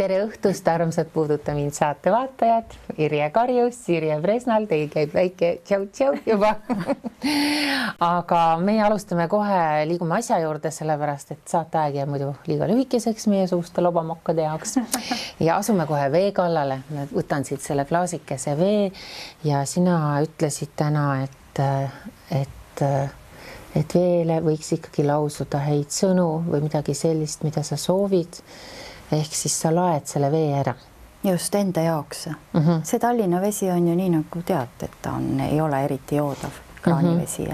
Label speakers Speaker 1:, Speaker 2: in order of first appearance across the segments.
Speaker 1: tere õhtust, armsad Puuduta mind saate vaatajad. Irje Karjus, Irje Presnal, teil käib väike tšau-tšau juba. Aga meie alustame kohe, liigume asja juurde, sellepärast, et saateaeg jääb muidu liiga lühikeseks meie suuste lobamokkade jaoks. Ja asume kohe vee kallale. Võtan siit selle klaasikese vee ja sina ütlesid täna, et veele võiks ikkagi lausuda häid sõnu või midagi sellist, mida sa soovid. Ehk siis sa laed selle vee ära.
Speaker 2: Just enda jaoks. See Tallinna vesi on ju nii nagu tead, et ta ei ole eriti joodav kraanivesi.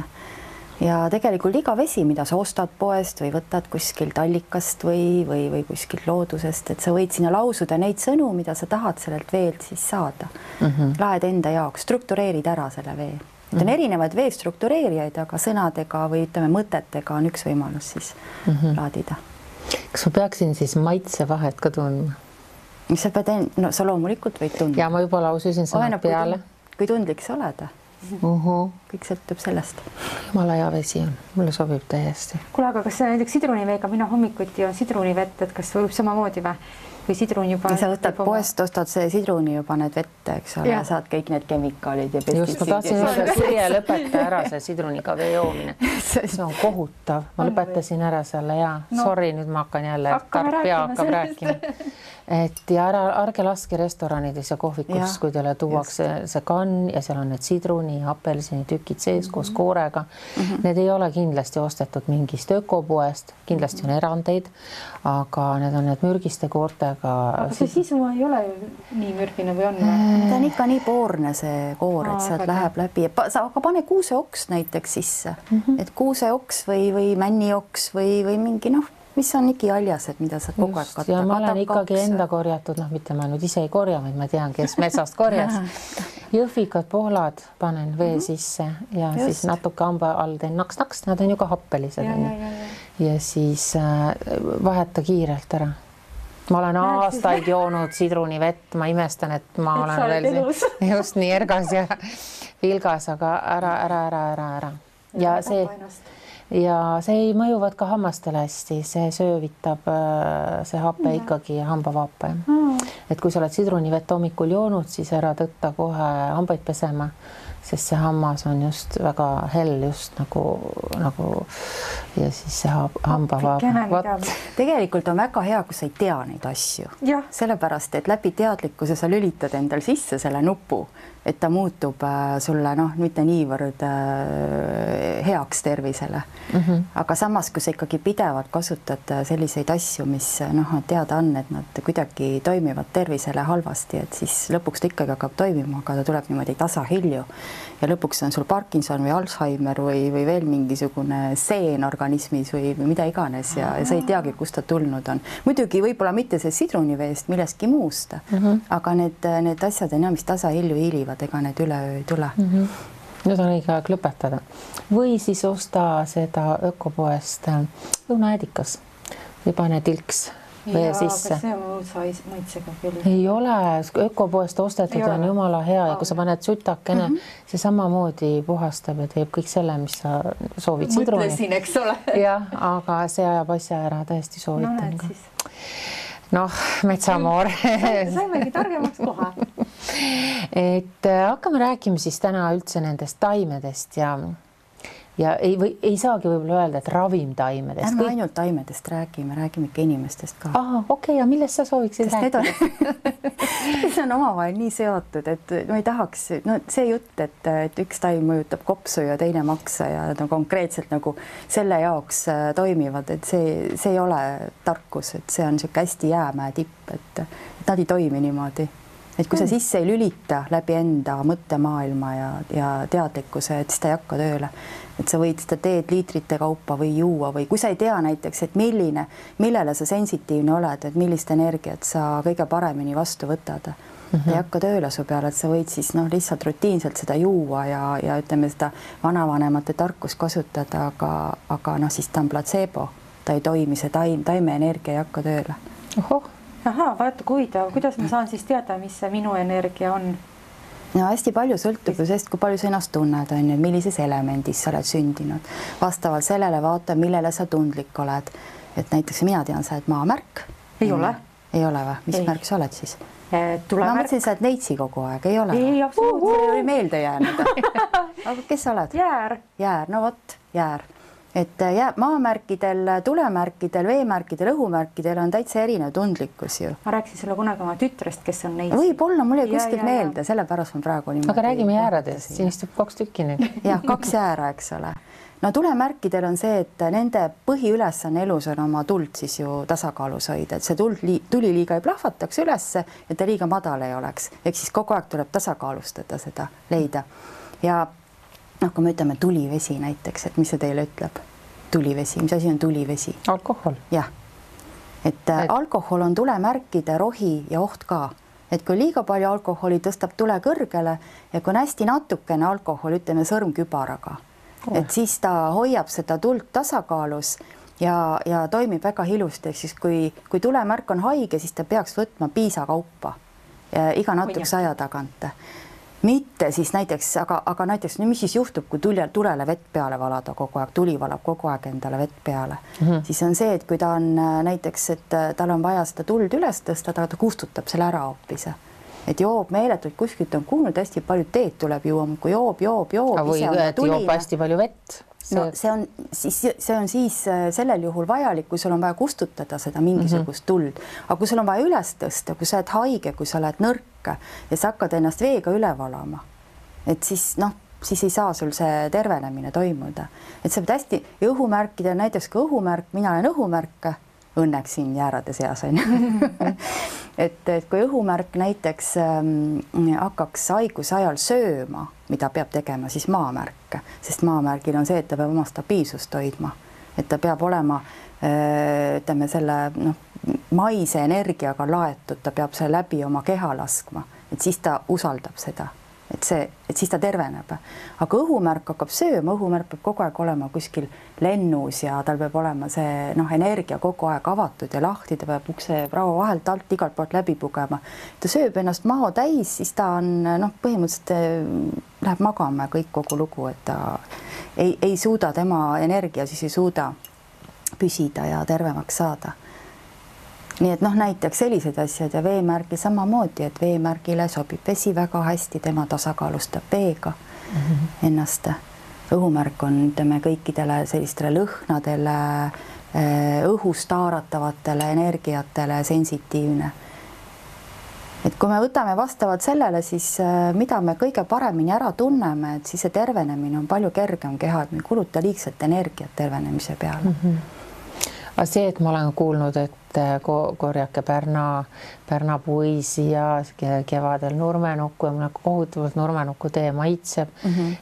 Speaker 2: Ja tegelikult iga vesi, mida sa ostad poest või võtad kuskilt allikast või kuskilt loodusest, et sa võid sinna lausuda neid sõnu, mida sa tahad sellelt veelt siis saada. Laed enda jaoks, struktureerid ära selle vee. Et on erinevaid vee struktureerijaid, aga sõnadega või ütleme mõtetega on üks võimalus siis laadida.
Speaker 1: Kas ma peaksin siis maitse vahet ka tundma?
Speaker 2: Sa pead, no sa loomulikult võid tundma.
Speaker 1: Ja ma juba laususin sõnad peale.
Speaker 2: Kui tundlik sa oled. Kõik sõltub sellest.
Speaker 1: Jumala hea vesi on. Mulle sobib täiesti.
Speaker 3: Kuule, aga kas näiteks sidruniveega mina hommikuti on sidrunivett, et kas võib samamoodi või? Või sidrun juba...
Speaker 2: Sa võtad poest, ostad see sidruni ja paned vette, eks ole, ja saad kõik need kemikaalid ja
Speaker 1: pestitsiidid. Just, ma tahtsin öelda, Sirje lõpeta ära see sidruniga vee joomine. See on kohutav. Ma lõpetasin ära selle ja sorry, nüüd ma hakkan jälle, tark pea hakkab rääkima. Et ja ärge laske restoranides ja kohvikus, kui teile tuuakse see kann ja seal on need sidruni ja apelsini tükid sees koos koorega. Need ei ole kindlasti ostetud mingist ökopoest, kindlasti on erandeid, aga need on need mürgiste koortega.
Speaker 3: Aga see sisu ei ole nii mürgine või on?
Speaker 2: Ta on ikka nii poorne see koor, et sealt läheb läbi. Aga pane kuuseoks näiteks sisse, et kuuseoks või männioks või mingi mis on ikialjased, mida sa kogu aeg katta.
Speaker 1: Ja ma olen ikkagi enda korjatud, mitte ma nüüd ise ei korja, vaid ma tean, kes metsast korjas. Jõhvikad pohlad panen vee sisse ja siis natuke hamba all teen naks-naks, nad on ju ka happelised. Ja siis vaheta kiirelt ära. Ma olen aastaid joonud sidrunivett, ma imestan, et ma olen veel just nii ergas ja vilgas, aga ära. Ja see ei mõjuvad ka hammastele hästi, see söövitab see happe ikkagi hambavaape. Et kui sa oled sidrunivett hommikul joonud, siis ära tõtta kohe hambaid pesema, sest see hammas on just väga hell just nagu ja siis see hambavaape.
Speaker 2: Tegelikult on väga hea, kui sa ei tea neid asju. Sellepärast, et läbi teadlikkuse sa lülitad endal sisse selle nupu, et ta muutub sulle mitte niivõrd heaks tervisele. Aga samas, kui sa ikkagi pidevalt kasutad selliseid asju, mis teada on, et nad kuidagi toimivad tervisele halvasti, et siis lõpuks ta ikkagi hakkab toimima, aga ta tuleb niimoodi tasahilju. Ja lõpuks on sul Parkinson või Alzheimer või veel mingisugune seen organismis või mida iganes ja sa ei teagi, kust ta tulnud on. Muidugi võib-olla mitte see sidruniveest millestki muust, aga need asjad on mis tasahilju hiilivad, ega need üleöö ei tule.
Speaker 1: Nüüd on õige aeg lõpetada. Või siis osta seda ökopoest õunaedikas või pane tilks vee sisse.
Speaker 3: Aga see on maitsega küll.
Speaker 1: Ei ole, ökopoest ostetud on jumala hea ja kui sa paned sütakene, see samamoodi puhastab ja teeb kõik selle, mis sa soovid sidruni.
Speaker 3: Mõtlesin, eks ole.
Speaker 1: Jah, aga see ajab asja ära, täiesti soovitan ka. Metsamoor.
Speaker 3: Saimegi targemaks kohe.
Speaker 1: Et hakkame rääkima siis täna üldse nendest taimedest ja ei saagi võib-olla öelda, et ravimtaimedest.
Speaker 2: Ärme ainult taimedest räägime ikka inimestest ka.
Speaker 1: Okei, ja millest sa sooviksid rääkida?
Speaker 2: See on omavahel nii seotud, et ma ei tahaks, see jutt, et üks taim mõjutab kopsu ja teine maksa ja konkreetselt nagu selle jaoks toimivad, et see ei ole tarkus, et see on niisugune hästi jäämäe tipp, et nad ei toimi niimoodi. Et kui sa sisse ei lülita läbi enda mõttemaailma ja teadlikkuse, et siis ta ei hakka tööle. Et sa võid seda teed liitrite kaupa või juua või kui sa ei tea näiteks, et millele sa sensitiivne oled, et millist energiat sa kõige paremini vastu võtad. Ta ei hakka tööle su peale, et sa võid siis lihtsalt rutiinselt seda juua ja ütleme seda vanavanemate tarkust kasutada, aga siis ta on placebo. Ta ei toimi, see taime energia ei hakka tööle.
Speaker 3: Vaata, kuidas ma saan siis teada, mis see minu energia on?
Speaker 2: Hästi palju sõltub ju sellest, kui palju sa ennast tunned, millises elemendis sa oled sündinud. Vastavalt sellele vaata, millele sa tundlik oled. Et näiteks mina tean, sa oled maamärk.
Speaker 3: Ei ole?
Speaker 2: ei ole või? Mis märk sa oled siis? Ma mõtlesin, sa oled neitsi kogu aeg, ei ole?
Speaker 3: Ei, absoluutselt.
Speaker 2: See oli meelde jäänud. Aga kes sa oled?
Speaker 3: Jäär.
Speaker 2: Jäär, no vot, jäär. Et maamärkidel, tulemärkidel, veemärkidel, õhumärkidel on täitsa erinev tundlikkus ju.
Speaker 3: Ma rääkisin sulle kunagi oma tütrest, kes on neitsi.
Speaker 2: Võib-olla, mul ei kuskilt meelde, sellepärast ma praegu niimoodi.
Speaker 1: Aga räägime jääradest, siin istub 2 tükki nüüd.
Speaker 2: Jah, 2 jäära, eks ole. No tulemärkidel on see, et nende põhiülesanne elus on oma tuld siis ju tasakaalus hoida, et see tuli liiga ei plahvataks ülesse, et ta liiga madal ei oleks. Ehk siis kogu aeg tuleb tasakaalustada seda, leida. Ja kui me ütleme tulivesi näiteks, et mis see teile ütleb? Tulivesi, mis asi on tulivesi?
Speaker 1: Alkohol.
Speaker 2: Jah. Et alkohol on tulemärkide rohi ja oht ka. Et kui liiga palju alkoholi tõstab tule kõrgele ja kui on hästi natukene alkohol, ütleme sõrmkübaraga, et siis ta hoiab seda tuld tasakaalus ja toimib väga ilusti. Ehk siis kui tulemärk on haige, siis ta peaks võtma piisakaupa iga natukese aja tagant. Mitte siis näiteks, aga näiteks mis siis juhtub, kui tulele vett peale valada kogu aeg, tuli valab kogu aeg endale vett peale, siis on see, et kui ta on näiteks, et tal on vaja seda tuld üles tõsta, ta kustutab selle ära hoopis. Et joob meeletult, kuskilt on kuulnud, hästi palju teed tuleb juua, kui joob.
Speaker 1: Või joob hästi palju vett.
Speaker 2: No see on siis sellel juhul vajalik, kui sul on vaja kustutada seda mingisugust tuld. Aga kui sul on vaja üles tõsta, kui sa oled haige, kui sa oled nõrk ja sa hakkad ennast veega üle valama, et siis siis ei saa sul see tervenemine toimuda. Et sa pead hästi õhumärkida, näiteks kui õhumärk, mina olen õhumärk, õnneks siin jäärade seas on. et kui õhumärk näiteks hakkaks haiguse ajal sööma, mida peab tegema, siis maamärk, sest maamärgil on see, et ta peab oma stabiilsust hoidma, et ta peab olema ütleme selle maise energiaga laetud, ta peab selle läbi oma keha laskma, et siis ta usaldab seda, et siis ta terveneb. Aga õhumärk hakkab sööma, õhumärk peab kogu aeg olema kuskil lennus ja tal peab olema see energia kogu aeg avatud ja lahti, ta peab ukse raua vahelt alt igalt poolt läbi pugema. Ta sööb ennast maho täis, siis ta on põhimõtteliselt läheb magama ja kõik kogu lugu, et ta ei suuda, tema energia siis ei suuda püsida ja tervemaks saada. Nii et näiteks sellised asjad ja veemärgi samamoodi, et veemärgile sobib vesi väga hästi, tema tasakaalustab veega ennast. Õhumärk on kõikidele sellistele lõhnadele, õhust haaratavatele energiatele sensitiivne. Et kui me võtame vastavalt sellele, siis mida me kõige paremini ära tunneme, et siis see tervenemine on palju kergem keha, et me ei kuluta liigselt energiat tervenemise peale.
Speaker 1: Aga see, et ma olen kuulnud, et korjake Pärna puisi ja kevadel nurmenukku ja mulle kohutavalt nurmenukku tee maitseb.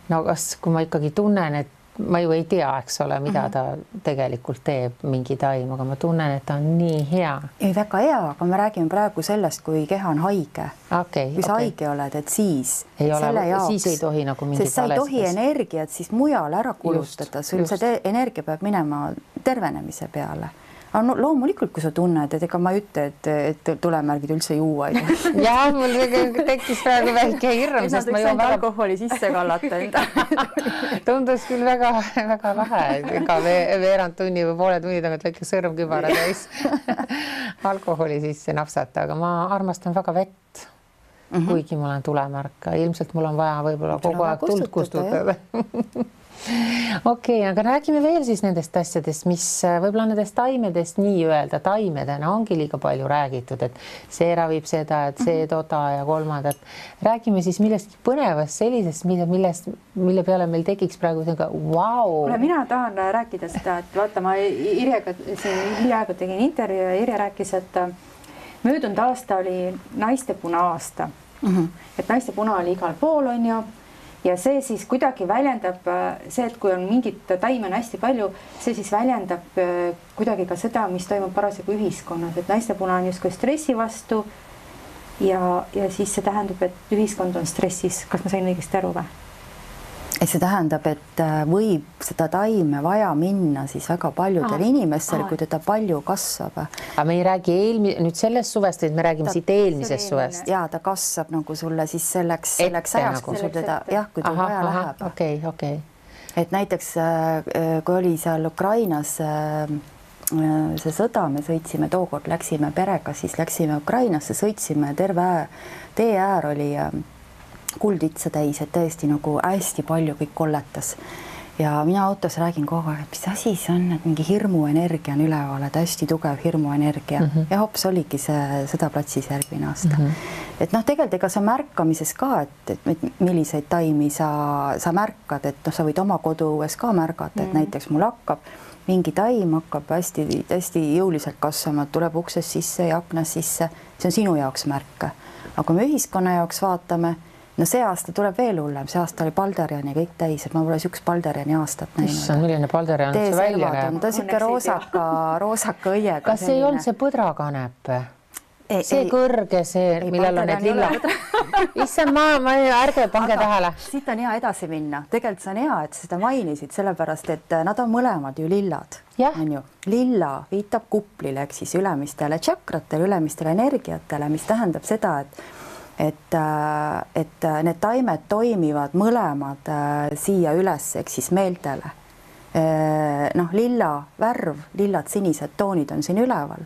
Speaker 1: No kas, kui ma ikkagi tunnen, et ma ju ei tea, eks ole, mida ta tegelikult teeb mingi taim, aga ma tunnen, et ta on nii hea.
Speaker 2: Ei, väga hea, aga me räägime praegu sellest, kui keha on haige. Kui sa haige oled, et siis
Speaker 1: ei tohi nagu mingit
Speaker 2: sest sa ei tohi energiat siis mujal ära kulutada, sul see energia peab minema tervenemise peale. Aga loomulikult, kui sa tunned, et ega ma ei ütle, et tulemärgid üldse juua ei tohi.
Speaker 1: Jah, mul tekkis praegu väike hirm, sest ma joon
Speaker 2: alkoholi sisse kallata enda.
Speaker 1: Tundus küll väga lahe, ega veerand tunni või poole tunni tagant väike sõrmkübara täis alkoholi sisse napsata, aga ma armastan väga vett, kuigi ma olen tulemärk. Ilmselt mul on vaja võib-olla kogu aeg tuld kustutada. Okei, aga räägime veel siis nendest asjadest, mis võib-olla nendest taimedest nii-öelda taimedena ongi liiga palju räägitud, et see ravib seda, et see toda ja kolmandat. Räägime siis millestki põnevast sellisest, mille peale meil tekiks praegu wow.
Speaker 3: Mina tahan rääkida seda, et vaata, ma Irjega hiljaaegu tegin intervjuu ja Irja rääkis, et möödunud aasta oli naistepuna aasta. Et naistepuna oli igal pool, on ju. Ja see siis kuidagi väljendab see, et kui on mingit taime on hästi palju, see siis väljendab kuidagi ka seda, mis toimub parasjagu ühiskonnas, et naistepuna on justkui stressi vastu ja siis see tähendab, et ühiskond on stressis. Kas ma sain õigesti aru või?
Speaker 2: See tähendab, et võib seda taime vaja minna siis väga paljudel inimestel, kui teda palju kasvab.
Speaker 1: Aga me ei räägi nüüd sellest suvest, et me räägime siit eelmisest suvest.
Speaker 2: Ja ta kasvab nagu sulle siis selleks ajaks, kui sul teda, kui ta vaja läheb.
Speaker 1: Okei.
Speaker 2: Et näiteks, kui oli seal Ukrainas see sõda, me sõitsime, tookord läksime perega, siis läksime Ukrainasse, sõitsime, terve tee äär oli kulditsa täis, et täiesti nagu hästi palju kõik kolletas. Ja mina autos räägin kogu aeg, et mis asi see on, et mingi hirmuenergia on üleval, et hästi tugev hirmuenergia ja hops oligi see sõdaplatsis järgmine aasta. Et noh, tegelikult ega sa märkamises ka, et milliseid taimi sa märkad, et noh, sa võid oma koduõues ka märgata, et näiteks mul hakkab mingi taim hakkab hästi jõuliselt kasvama, tuleb uksest sisse ja aknas sisse, see on sinu jaoks märk. Aga kui me ühiskonna jaoks vaatame, no see aasta tuleb veel hullem, see aasta oli Balderiani kõik täis, et ma pole üks Balderiani aastat näinud.
Speaker 1: Issand, milline Balderian see välja näeb?
Speaker 2: Ta on siuke roosaka õiega.
Speaker 1: Kas ei olnud see põdrakanep? See kõrge, see, millel on need lilla. Issand, ärge pange tähele.
Speaker 2: Siit on hea edasi minna. Tegelikult see on hea, et seda mainisid, sellepärast, et nad on mõlemad ju lillad. On ju. Lilla viitab kuplile, ehk siis ülemistele tšakratele, ülemistele energiatele, mis tähendab seda, et need taimed toimivad mõlemad siia üles, ehk siis meeltele. Noh, lilla värv, lillad sinised toonid on siin üleval.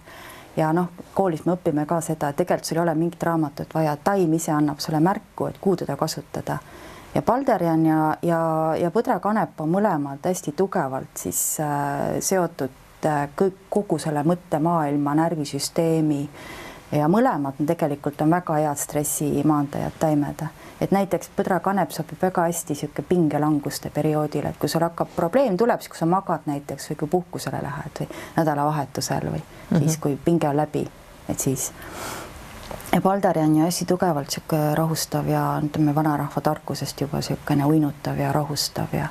Speaker 2: Ja noh, koolis me õpime ka seda, et tegelikult sul ei ole mingit raamatut vaja, taim ise annab sulle märku, et kuhu teda kasutada. Ja Balderian ja põdrakanep on mõlemad hästi tugevalt siis seotud kogu selle mõttemaailma, närvisüsteemi ja mõlemad tegelikult on väga head stressimaandajad taimed. Et näiteks põdrakanep sobib väga hästi siuke pingelanguste perioodil, et kui sul hakkab probleem tuleb, siis kui sa magad näiteks või kui puhkusele lähed või nädalavahetusel või siis kui pinge on läbi, et siis. Ja Balderian on hästi tugevalt siuke rahustav ja ütleme vanarahva tarkusest juba siukene uinutav ja rahustav ja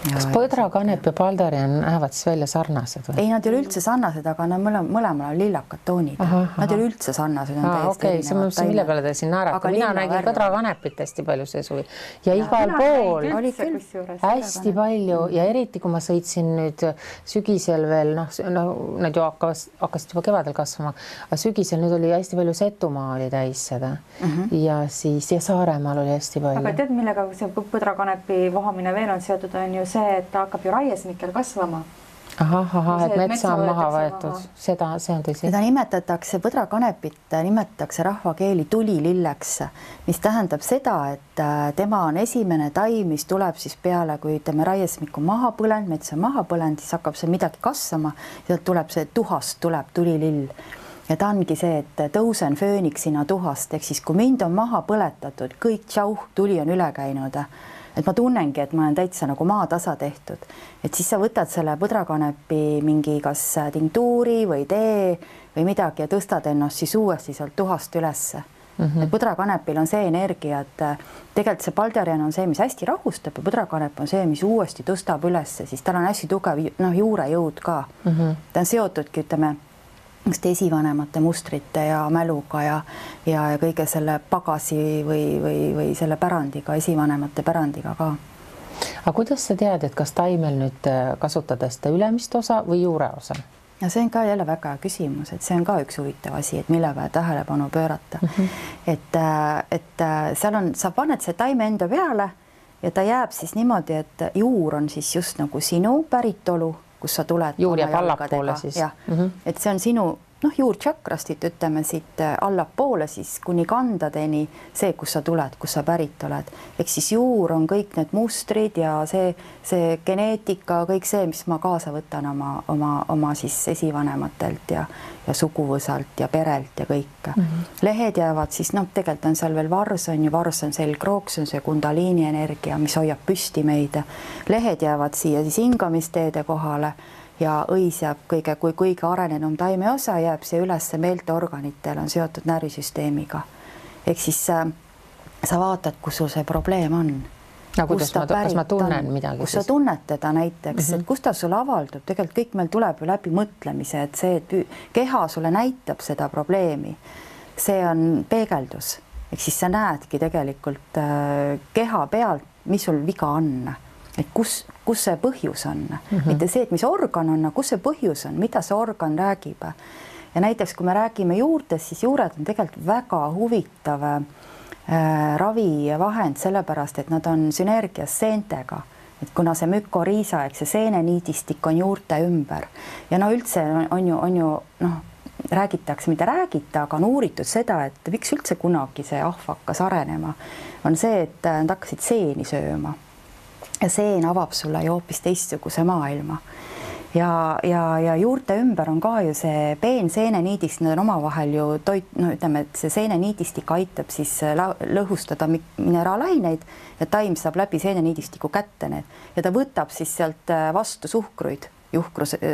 Speaker 1: kas põdrakanep ja Balderian näevad siis välja sarnased või?
Speaker 2: Ei, nad ei ole üldse sarnased, aga nad mõlemal on lillakad toonid. Nad ei ole üldse sarnased.
Speaker 1: Okei, see mõtlesin, mille peale te siin naerate. Mina nägin põdrakanepit hästi palju see suvi. Ja igal pool hästi palju ja eriti, kui ma sõitsin nüüd sügisel veel, nad ju hakkasid juba kevadel kasvama, aga sügisel nüüd oli hästi palju Setumaa oli täis seda ja siis ja Saaremaal oli hästi palju.
Speaker 3: Aga tead, millega see põdrakanepi vohamine veel on seotud, on ju see, et ta hakkab ju raiesmikel kasvama.
Speaker 1: Et metsa on maha võetud. See on tõsi.
Speaker 2: Seda nimetatakse, põdrakanepit nimetatakse rahvakeeli tulililleks, mis tähendab seda, et tema on esimene taim, mis tuleb siis peale, kui ütleme raiesmik on maha põlend, metsa maha põlend, siis hakkab see midagi kasvama ja tuleb see tuhast, tuleb tulilill. Ja ta ongi see, et tõusen fööniksina tuhast, ehk siis kui mind on maha põletatud, kõik tšauh, tuli on üle käinud. Et ma tunnengi, et ma olen täitsa nagu maatasa tehtud. Et siis sa võtad selle põdrakanepi mingi kas tinktuuri või tee või midagi ja tõstad ennast siis uuesti sealt tuhast ülesse. Et põdrakanepil on see energia, et tegelikult see Balderian on see, mis hästi rahustab ja põdrakanep on see, mis uuesti tõstab ülesse, siis tal on hästi tugev juurejõud ka. Ta on seotudki, ütleme, esivanemate mustrite ja mäluga ja kõige selle pagasi või selle pärandiga, esivanemate pärandiga ka.
Speaker 1: Aga kuidas sa tead, et kas taimel nüüd kasutada seda ülemist osa või juure osa?
Speaker 2: Ja see on ka jälle väga küsimus, et see on ka üks huvitav asi, et mille peale tähelepanu pöörata. Et seal on, sa paned see taime enda peale ja ta jääb siis niimoodi, et juur on siis just nagu sinu päritolu, kus sa tuled.
Speaker 1: Juur jääb allapoole siis.
Speaker 2: Et see on sinu juurtšakrastit, ütleme siit allapoole siis kuni kandadeni see, kus sa tuled, kus sa pärit oled. Ehk siis juur on kõik need mustrid ja see geneetika, kõik see, mis ma kaasa võtan oma siis esivanematelt ja suguvõsalt ja perelt ja kõik. Lehed jäävad siis, tegelikult on seal veel vars on selgroog, see on see kundaliini energia, mis hoiab püsti meid. Lehed jäävad siia siis hingamisteede kohale ja õis jääb kõige arenenum taime osa jääb see üles meelteorganitel on seotud närvisüsteemiga. Ehk siis sa vaatad, kus sul see probleem on.
Speaker 1: Kas ma tunnen midagi?
Speaker 2: Kus sa tunned teda näiteks, et kus ta sulle avaldub. Tegelikult kõik meil tuleb ju läbi mõtlemise, et see, et keha sulle näitab seda probleemi, see on peegeldus. Ehk siis sa näedki tegelikult keha pealt, mis sul viga on. Et kus see põhjus on. Mitte see, et mis organ on, kus see põhjus on, mida see organ räägib. Ja näiteks, kui me räägime juurtest, siis juured on tegelikult väga huvitav ravivahend, sellepärast, et nad on sünergias seentega. et kuna see mükoriisa, eks see seeneniidistik on juurte ümber ja no üldse on ju noh, räägitakse, mida räägita, aga on uuritud seda, et miks üldse kunagi see ahv hakkas arenema, on see, et nad hakkasid seeni sööma ja seen avab sulle ju hoopis teistsuguse maailma. Ja juurte ümber on ka ju see peenseeneniidistik, need on omavahel ju no ütleme, et see seeneniidistik aitab siis lõhustada mineraalaineid ja taim saab läbi seeneniidistiku kätte need ja ta võtab siis sealt vastu suhkruid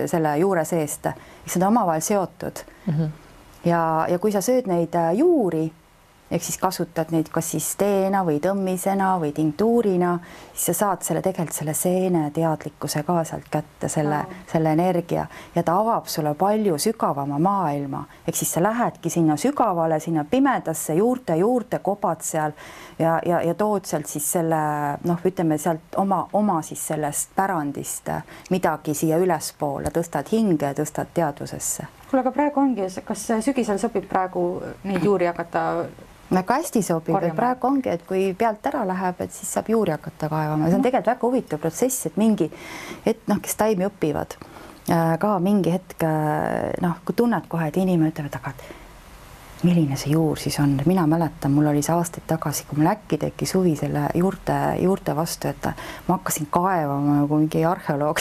Speaker 2: selle juure seest, mis on omavahel seotud. Ja kui sa sööd neid juuri, ehk siis kasutad neid kas siis teena või tõmmisena või tinktuurina, siis sa saad tegelikult selle seene teadlikkuse ka sealt kätte, selle energia ja ta avab sulle palju sügavama maailma. Ehk siis sa lähedki sinna sügavale, sinna pimedasse juurte kobad seal ja tood sealt siis selle, noh, ütleme sealt oma siis sellest pärandist midagi siia ülespoole, tõstad hinge, tõstad teadvusesse.
Speaker 3: Kuule, aga praegu ongi, kas sügisel sobib praegu neid juuri hakata
Speaker 2: väga hästi sobib, et praegu ongi, et kui pealt ära läheb, et siis saab juuri hakata kaevama. See on tegelikult väga huvitav protsess, et mingi hetk, noh, kes taimi õpivad, ka mingi hetk, noh, kui tunned kohe, et inimene ütleb, et aga milline see juur siis on. Mina mäletan, mul oli see aastaid tagasi, kui mul äkki tekkis huvi selle juurte vastu, et ma hakkasin kaevama nagu mingi arheoloog,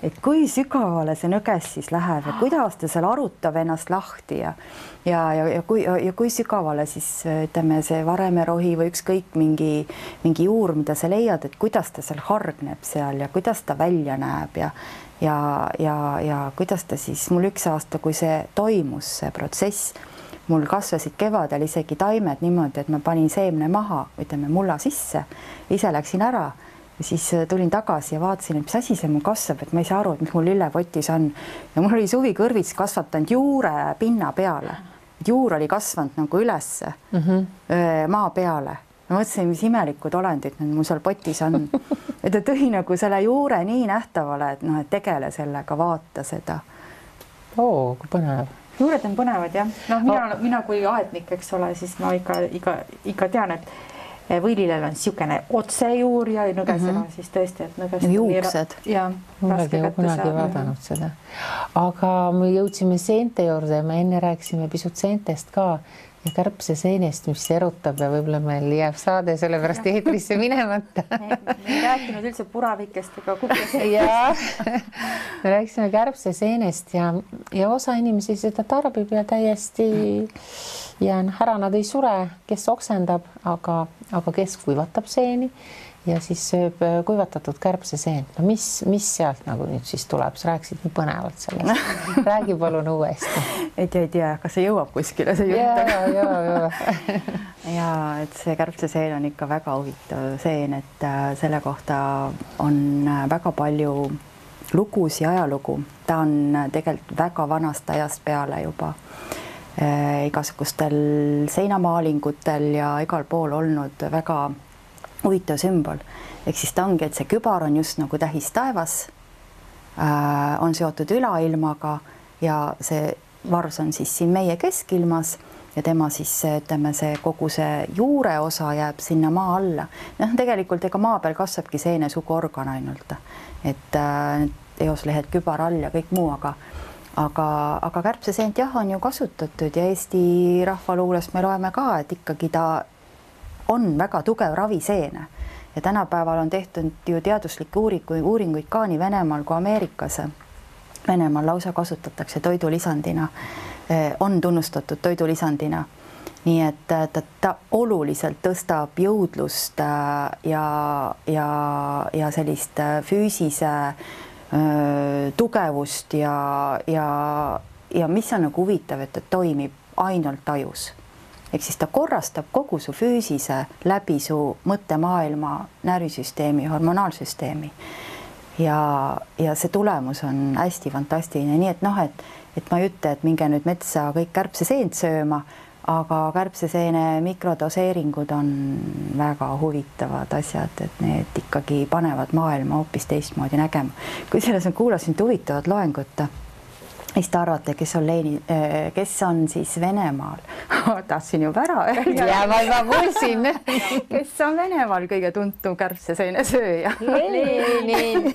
Speaker 2: et kui sügavale see nõges siis läheb ja kuidas ta seal arutab ennast lahti ja kui sügavale siis ütleme see varemerohi või ükskõik mingi juur, mida sa leiad, et kuidas ta seal hargneb seal ja kuidas ta välja näeb ja kuidas ta siis, mul üks aasta, kui see toimus, see protsess, mul kasvasid kevadel isegi taimed niimoodi, et ma panin seemne maha, ütleme mulla sisse, ise läksin ära ja siis tulin tagasi ja vaatasin, et mis asi see mul kasvab, et ma ei saa aru, et mis mul lillepotis on. Ja mul oli suvikõrvits kasvatanud juure pinna peale. Juur oli kasvanud nagu ülesse maa peale. Ma mõtlesin, mis imelikud olendid mul seal potis on. Et ta tõi nagu selle juure nii nähtavale, et noh, et tegele sellega, vaata seda.
Speaker 1: Kui põnev.
Speaker 3: Juured on põnevad, jah. No, mina kui aednik, eks ole, siis ma ikka tean, et võililel on siukene otsejuur ja nõgesena siis tõesti, et nõgest
Speaker 2: juuksed.
Speaker 1: Mullegi kunagi vaadanud seda. Aga me jõudsime seente juurde ja me enne rääkisime pisut seentest ka ja kärbse seenest, mis erutab ja võib-olla meil jääb saade sellepärast eetrisse minemata.
Speaker 3: Me ei rääkinud üldse puravikest ega kuklasest.
Speaker 1: Me rääkisime kärbse seenest ja osa inimesi seda tarbib ja täiesti ära nad ei sure, kes oksendab, aga kes kuivatab seeni ja siis sööb kuivatatud kärbseseent. No mis sealt nagu nüüd siis tuleb? Sa rääkisid nii põnevalt sellest. Räägi palun uuesti.
Speaker 2: Et ei tea, kas see jõuab kuskile see jutt. Ja et see kärbseseen on ikka väga huvitav seen, et selle kohta on väga palju lugusid ja ajalugu. Ta on tegelikult väga vanast ajast peale juba igasugustel seinamaalingutel ja igal pool olnud väga huvitav sümbol. Ehk siis ta ongi, et see kübar on just nagu tähis taevas, on seotud ülailmaga ja see vars on siis siin meie keskilmas ja tema siis ütleme, see kogu see juure osa jääb sinna maa alla. Noh, tegelikult ega maa peal kasvabki seenesuguorgan ainult, et eoslehed kübar all ja kõik muu, aga kärbseseent jah, on ju kasutatud ja Eesti rahvaluulest me loeme ka, et ikkagi ta on väga tugev raviseene ja tänapäeval on tehtud ju teaduslikke uuringuid ka nii Venemaal kui Ameerikas. Venemaal lausa kasutatakse toidulisandina, on tunnustatud toidulisandina. Nii et ta oluliselt tõstab jõudlust ja sellist füüsise tugevust ja mis on nagu huvitav, et ta toimib ainult tajus. Ehk siis ta korrastab kogu su füüsise läbi su mõttemaailma, närvisüsteemi, hormonaalsüsteemi. Ja see tulemus on hästi fantastiline. Nii et noh, et ma ei ütle, et minge nüüd metsa kõik kärbseseent sööma, aga kärbseseene mikrodoseeringud on väga huvitavad asjad, et need ikkagi panevad maailma hoopis teistmoodi nägema. Kui selles ma kuulasin huvitavat loengut, mis te arvate, kes on siis Venemaal? Tahtsin juba ära öelda.
Speaker 1: Ja ma juba kuulsin.
Speaker 2: Kes on Venemaal kõige tuntum kärbseseene sööja?
Speaker 1: Lenin.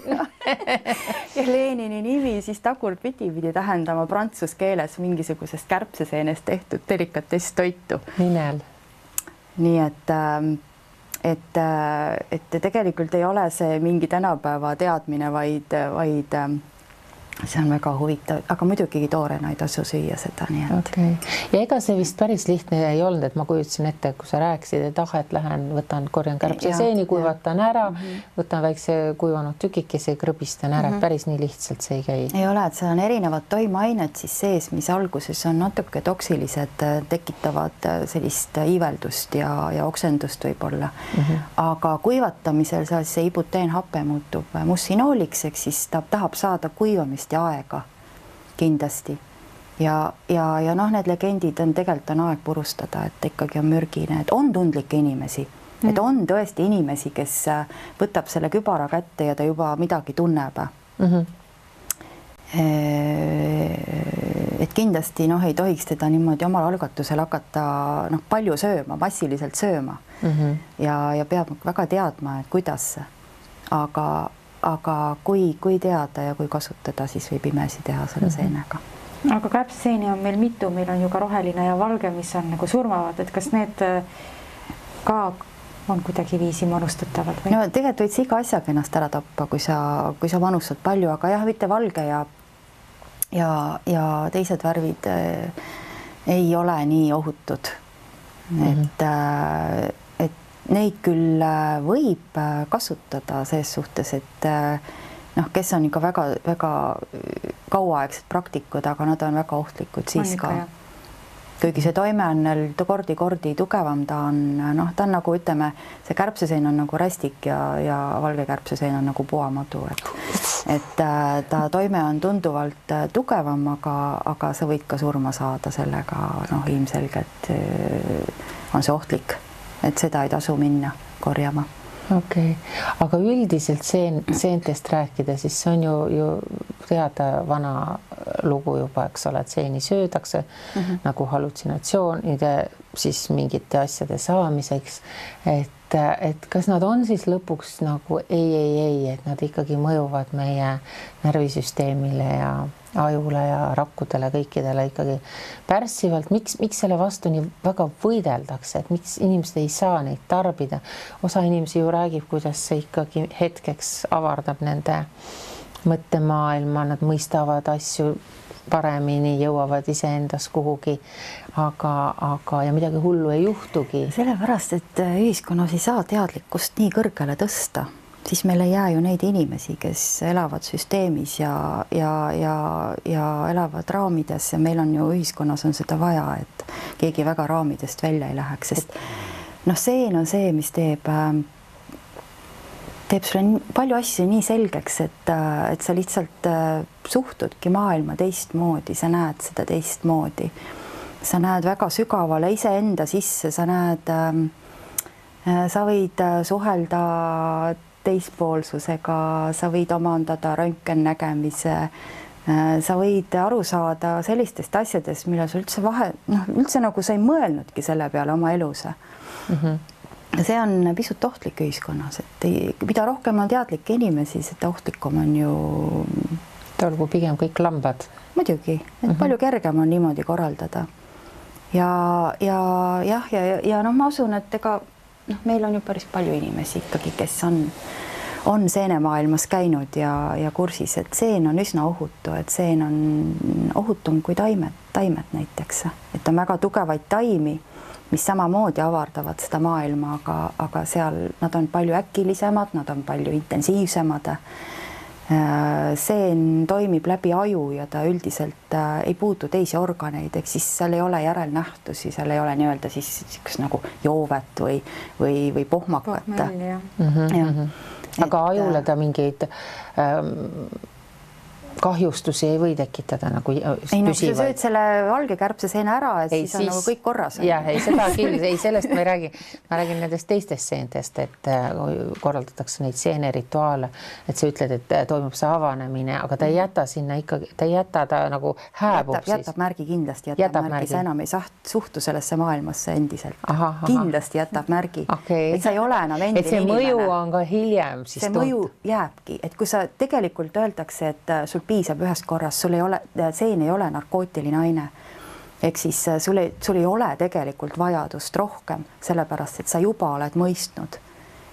Speaker 2: Ja Lenini nimi siis tagurpidi pidi tähendama prantsuse keeles mingisugusest kärbseseenest tehtud delikatess toitu.
Speaker 1: Nimel.
Speaker 2: Nii et tegelikult ei ole see mingi tänapäeva teadmine, vaid see on väga huvitav, aga muidugi toorena ei tasu süüa seda, nii et.
Speaker 1: Okay. Ja ega see vist päris lihtne ei olnud, et ma kujutasin ette, kui sa rääkisid, et et lähen, võtan, korjan kärbseseeni, kuivatan ära, võtan väikse kuivanud tükikese, krõbistan ära, et päris nii lihtsalt see ei käi.
Speaker 2: Ei ole, et see on erinevad toimeained siis sees, mis alguses on natuke toksilised, tekitavad sellist iiveldust ja oksendust võib-olla. Aga kuivatamisel see ibuteenhape muutub mussinooliks, eks siis ta tahab saada kuivamist ja aega kindlasti ja need legendid on tegelikult on aeg purustada, et ikkagi on mürgine, et on tundlikke inimesi, et on tõesti inimesi, kes võtab selle kübara kätte ja ta juba midagi tunneb. Et kindlasti ei tohiks teda niimoodi omal algatusel hakata palju sööma, massiliselt sööma ja peab väga teadma, et kuidas, aga kui teada ja kui kasutada, siis võib imesi teha selle seenega.
Speaker 3: Aga kärbseseeni on meil mitu, meil on ju ka roheline ja valge, mis on nagu surmavad, et kas need ka on kuidagi viisi manustatavad? Või?
Speaker 2: No tegelikult võid iga asjaga ennast ära tappa, kui sa manustad palju, aga jah, mitte valge ja teised värvid ei ole nii ohutud. Et neid küll võib kasutada selles suhtes, et kes on ikka väga kauaaegsed praktikud, aga nad on väga ohtlikud siis ka. Kuigi see toime on kordi tugevam, ta on nagu ütleme, see kärbseseen on nagu rästik ja valge kärbseseen on nagu puamadu, et ta toime on tunduvalt tugevam, aga sa võid ka surma saada sellega, ilmselgelt on see ohtlik. Et seda ei tasu minna korjama.
Speaker 1: Okay. Aga üldiselt seentest rääkida, siis see on ju teada vana lugu juba, eks ole, et seeni söödakse nagu hallutsinatsioonide siis mingite asjade saamiseks, et kas nad on siis lõpuks nagu ei, et nad ikkagi mõjuvad meie närvisüsteemile ja ajule ja rakkudele, kõikidele ikkagi pärssivalt. Miks selle vastu nii väga võideldakse, et miks inimesed ei saa neid tarbida? Osa inimesi ju räägib, kuidas see ikkagi hetkeks avardab nende mõttemaailma, nad mõistavad asju paremini, jõuavad iseendas kuhugi, aga ja midagi hullu ei juhtugi.
Speaker 2: Sellepärast, et ühiskonnas ei saa teadlikkust nii kõrgele tõsta, siis meil ei jää ju neid inimesi, kes elavad süsteemis ja elavad raamides ja meil on ju ühiskonnas on seda vaja, et keegi väga raamidest välja ei läheks, sest seen on see, mis teeb sulle palju asju nii selgeks, et sa lihtsalt suhtudki maailma teistmoodi, sa näed seda teistmoodi. Sa näed väga sügavale iseenda sisse, sa võid suhelda teispoolsusega, sa võid omandada röntgennägemise, sa võid aru saada sellistest asjadest, mille sa üldse nagu sa ei mõelnudki selle peale oma elus. See on pisut ohtlik ühiskonnas, et mida rohkem on teadlikke inimesi, seda ohtlikum on ju.
Speaker 1: Olgu pigem kõik lambad.
Speaker 2: Muidugi, et palju kergem on niimoodi korraldada. Ja ma usun, et meil on ju päris palju inimesi ikkagi, kes on seenemaailmas käinud ja kursis, et seen on üsna ohutu, et seen on ohutum kui taimed näiteks, et on väga tugevaid taimi, mis samamoodi avardavad seda maailma, aga seal nad on palju äkilisemad, nad on palju intensiivsemad. Seen toimib läbi aju ja ta üldiselt ei puutu teisi organeid, ehk siis seal ei ole järelnähtusi, seal ei ole nii-öelda siis nagu joovet või pohmakat.
Speaker 1: Aga ajule ta mingeid kahjustusi ei või tekitada nagu
Speaker 2: ei, no, kui sa sööd selle valge kärbseseene ära, et ei, siis on nagu kõik korras.
Speaker 1: Jah, ei seda küll, ei sellest ma ei räägi. Ma räägin nendest teistest seentest, et korraldatakse neid seenerituaale, et sa ütled, et toimub see avanemine, aga ta ei jäta sinna ikkagi, ta ei jäta, ta nagu hääbub siis.
Speaker 2: Jätab märgi kindlasti, jätab märgi. Sa enam ei suhtu sellesse maailmasse endiselt. Kindlasti jätab märgi. Et sa ei ole enam endine
Speaker 1: inimene. Et see mõju on ka hiljem siis
Speaker 2: see mõju jääbki, et kui sa tegelikult öeldakse, et sul piisab ühest korrast, sul ei ole, seen ei ole narkootiline aine. Ehk siis sul ei ole tegelikult vajadust rohkem, sellepärast, et sa juba oled mõistnud.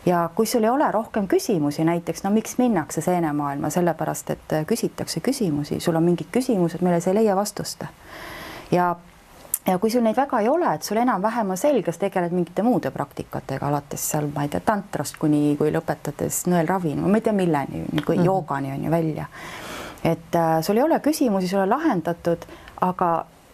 Speaker 2: Ja kui sul ei ole rohkem küsimusi, näiteks, no miks minnakse seenemaailma, sellepärast, et küsitakse küsimusi, sul on mingid küsimused, mille sa ei leia vastust. Ja kui sul neid väga ei ole, et sul enam-vähem on selges, tegeled mingite muude praktikatega, alates seal, ma ei tea, tantrast kui lõpetades nõelravi, ma ei tea milleni, kui joogani on ju välja. Et sul ei ole küsimusi, sul on lahendatud, aga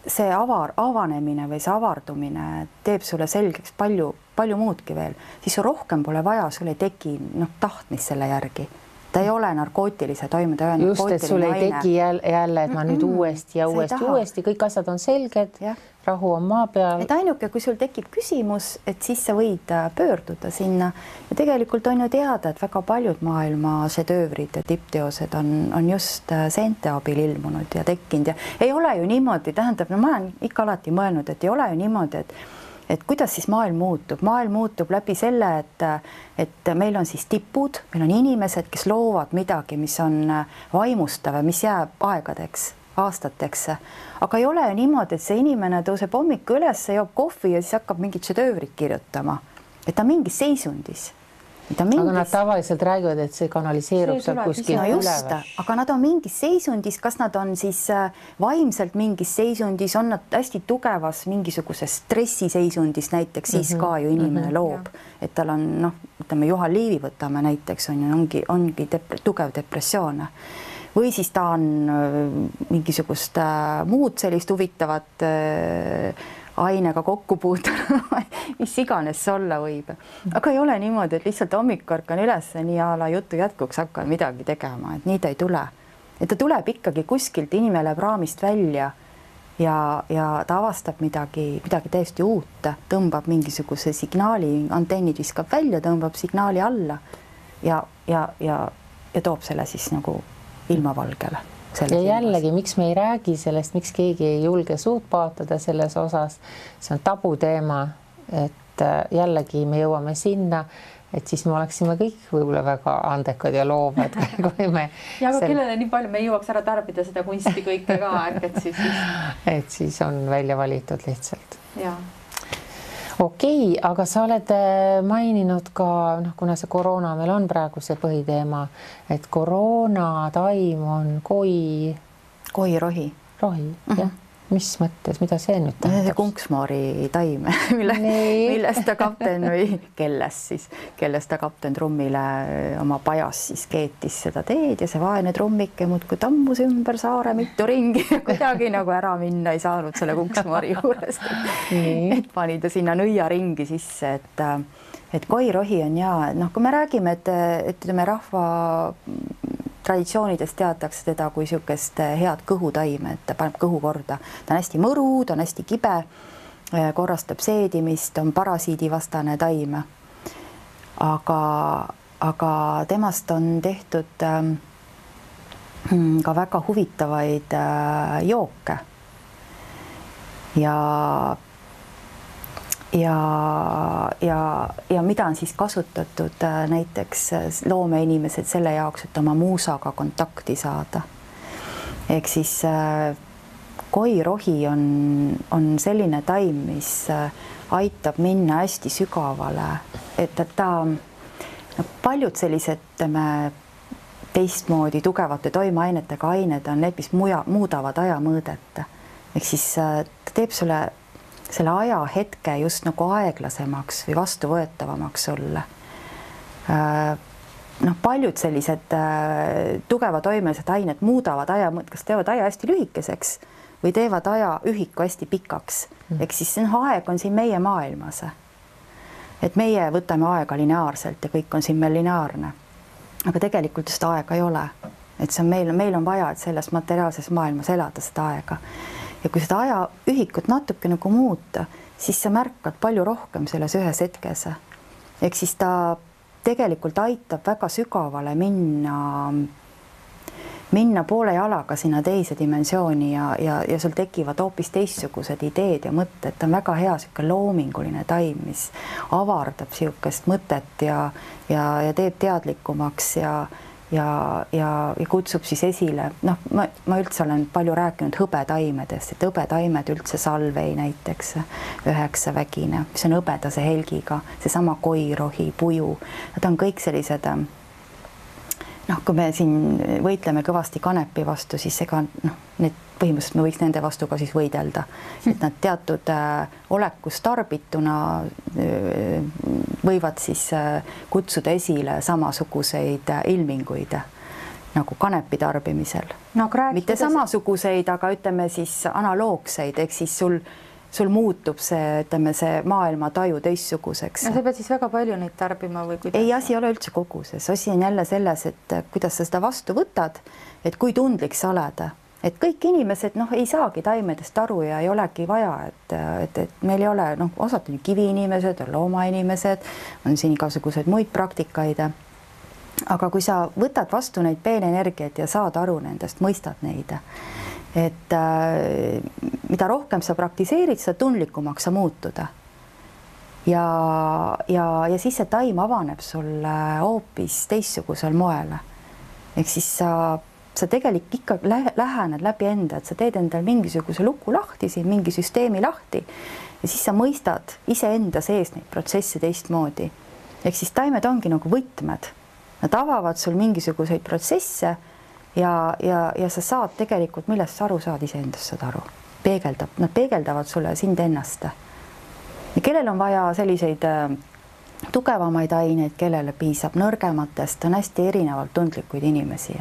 Speaker 2: see avanemine või see avardumine teeb sulle selgeks palju muudki veel, siis rohkem pole vaja, sul ei teki tahtmist selle järgi. Ta ei ole narkootilise toime, ta ei ole
Speaker 1: just, et sul ei teki jälle, et ma nüüd uuesti ja uuesti, kõik asjad on selged, rahu on maa peal.
Speaker 2: Et ainuke, kui sul tekib küsimus, et siis sa võid pöörduda sinna ja tegelikult on ju teada, et väga paljud maailma šedöövrid ja tippteosed on just seente abil ilmunud ja tekkinud ja ei ole ju niimoodi, tähendab, no ma olen ikka alati mõelnud, et ei ole ju niimoodi, et kuidas siis maailm muutub läbi selle, et meil on siis tipud, meil on inimesed, kes loovad midagi, mis on vaimustav ja mis jääb aegadeks, aastateks, aga ei ole ju niimoodi, et see inimene tõuseb hommiku üles, joob kohvi ja siis hakkab mingit šedöövrit kirjutama, et ta mingis seisundis.
Speaker 1: Aga nad tavaliselt räägivad, et see kanaliseerub seal kuskil
Speaker 2: üleval. Aga nad on mingis seisundis, kas nad on siis vaimselt mingis seisundis, on nad hästi tugevas mingisuguses stressiseisundis näiteks, siis ka ju inimene loob, et tal on, ütleme Juhan Liivi võtame näiteks, ongi tugev depressioon. Või siis ta on mingisugust muud sellist huvitavat ainega kokku puutunud, mis iganes see olla võib. Aga ei ole niimoodi, et lihtsalt hommik ärkan üles, nii a la jutu jätkuks hakkan midagi tegema, et nii ta ei tule. Et ta tuleb ikkagi kuskilt, inimene läheb raamist välja ja ta avastab midagi täiesti uut, tõmbab mingisuguse signaali, antennid viskab välja, tõmbab signaali alla ja toob selle siis nagu ilmavalgele.
Speaker 1: Ja jällegi, miks me ei räägi sellest, miks keegi ei julge suud paotada selles osas, see on tabuteema, et jällegi me jõuame sinna, et siis me oleksime kõik võib-olla väga andekad ja loovad. Kui me
Speaker 3: ja aga kellele nii palju me ei jõuaks ära tarbida seda kunsti kõike ka,
Speaker 1: et siis on välja valitud lihtsalt.
Speaker 3: Ja.
Speaker 1: Okei, aga sa oled maininud ka, kuna see koroona meil on praegu see põhiteema, et koroonataim on
Speaker 2: koirohi.
Speaker 1: Rohi, jah. Mis mõttes, mida see nüüd tähendab?
Speaker 2: See kunksmoori taim, millest ta kapten või kellest ta kapten trummile oma pajas siis keetis seda teed ja see vaene trummike muudkui tammus ümber saare mitu ringi ja kuidagi nagu ära minna ei saanud selle kunksmoori juurest. Et pani ta sinna nõiaringi sisse, et koirohi on kui me räägime, et rahva traditsioonidest teatakse teda kui niisugust head kõhutaime, et ta paneb kõhu korda. Ta on hästi mõru, ta on hästi kibe, korrastab seedimist, on parasiidivastane taim. Aga temast on tehtud ka väga huvitavaid jooke. Ja mida on siis kasutatud näiteks loomeinimesed selle jaoks, et oma muusaga kontakti saada. Ehk siis koirohi on selline taim, mis aitab minna hästi sügavale, et ta paljud sellised teistmoodi tugevate toimeainetega ained on need, mis muudavad ajamõõdet. Ehk siis ta teeb sulle selle ajahetke just nagu aeglasemaks või vastuvõetavamaks sulle. Paljud sellised tugeva toimelised ained muudavad aja, kas teevad aja hästi lühikeseks või teevad aja ühiku hästi pikaks. Ehk siis aeg on siin meie maailmas. Et meie võtame aega lineaarselt ja kõik on siin meil lineaarne. Aga tegelikult seda aega ei ole. et see on meil on vaja, et selles materiaalses maailmas elada seda aega. Ja kui seda ajaühikut natuke nagu muuta, siis sa märkad palju rohkem selles ühes hetkes. Ehk siis ta tegelikult aitab väga sügavale minna poole jalaga sinna teise dimensiooni ja sul tekivad hoopis teistsugused ideed ja mõtted. Ta on väga hea selline loominguline taim, mis avardab siukest mõtet ja teeb teadlikumaks ja kutsub siis esile. Noh, ma üldse olen palju rääkinud hõbetaimedest, et hõbetaimed üldse salvei näiteks 9-vägine, mis on hõbedase helgiga, seesama koirohi, puju. Nad on kõik sellised, noh, kui me siin võitleme kõvasti kanepi vastu, siis ega need põhimõtteliselt me võiks nende vastu ka siis võidelda, et nad teatud olekus tarbituna võivad siis kutsuda esile samasuguseid ilminguid nagu kanepi tarbimisel. No, mitte samasuguseid, aga ütleme siis analoogseid, ehk siis sul muutub see, ütleme, see maailma taju teistsuguseks.
Speaker 3: No sa pead siis väga palju neid tarbima või kuidas?
Speaker 2: Ei, asi ei ole üldse koguses. Asi on jälle selles, et kuidas sa seda vastu võtad, et kui tundlik sa oled. Et kõik inimesed ei saagi taimedest aru ja ei olegi vaja, et meil ei ole, osad on kiviinimesed, on loomainimesed, on siin igasugused muid praktikaid. Aga kui sa võtad vastu neid peenenergiaid ja saad aru nendest, mõistad neid, et mida rohkem sa praktiseerid, seda tundlikumaks sa muutuda. Ja siis see taim avaneb sulle hoopis teistsugusel moel. Ehk siis sa tegelikult ikka lähened läbi enda, et sa teed endal mingisuguse luku lahti, siin mingi süsteemi lahti ja siis sa mõistad iseenda sees neid protsesse teistmoodi. Ehk siis taimed ongi nagu võtmed. Nad avavad sul mingisuguseid protsesse ja sa saad tegelikult, millest sa aru saad, iseendast saad aru. Nad peegeldavad sulle sind ennast. Ja kellel on vaja selliseid tugevamaid aineid, kellele piisab nõrgematest, on hästi erinevalt tundlikuid inimesi.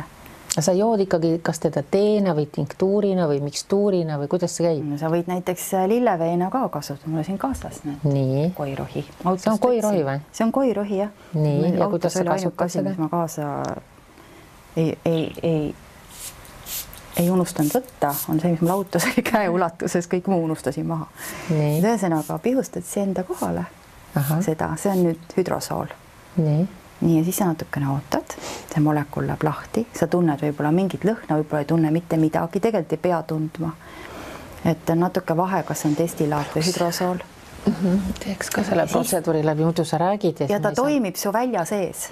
Speaker 1: Sa jood ikkagi kas teda teena või tinktuurina või mikstuurina või kuidas see käib?
Speaker 2: Sa võid näiteks lilleveena ka kasutada, mulle siin kaasas
Speaker 1: Nii.
Speaker 2: Koirohi.
Speaker 1: See on koirohi või?
Speaker 2: See on koirohi, jah.
Speaker 1: Nii, ja kuidas sa kasutad seda?
Speaker 2: Ma kaasa ei unustanud võtta, on see, mis mul autos oli käe ulatuses, kõik muu unustasin maha. Ühesõnaga pihustad see enda kohale. Seda, see on nüüd hüdrosool. Nii, ja siis sa natukene ootad, see molekul läheb lahti, sa tunned võib-olla mingit lõhna, võib-olla ei tunne mitte midagi, tegelikult ei pea tundma. Et natuke vahe, kas on destillaat või hüdrosool.
Speaker 1: Teeks ka selle protseduuri läbi, muidu sa räägid.
Speaker 2: Ja ta toimib su välja sees.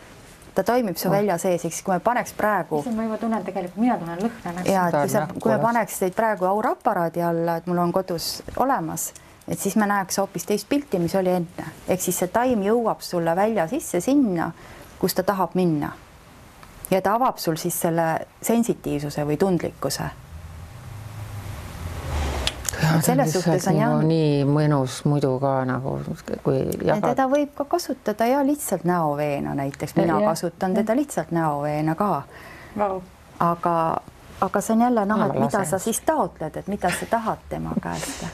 Speaker 2: Ta toimib su välja sees, eks kui me paneks praegu...
Speaker 3: Ma juba tunnen tegelikult, mina tunnen lõhna.
Speaker 2: Ja, kui me paneks teid praegu auraparaadi alla, et mul on kodus olemas, et siis me näeks hoopis teist pilti, mis oli enne. Ehk siis see taim jõuab sulle välja sisse sinna, kus ta tahab minna. Ja ta avab sul siis selle sensitiivsuse või tundlikkuse. Selles suhtes on jah...
Speaker 1: Nii mõnus muidu ka nagu, kui jagad...
Speaker 2: Teda võib ka kasutada ja lihtsalt näoveena näiteks. Mina kasutan teda lihtsalt näoveena ka. Aga see on jälle et mida sa siis taotled, et mida sa tahad tema käest.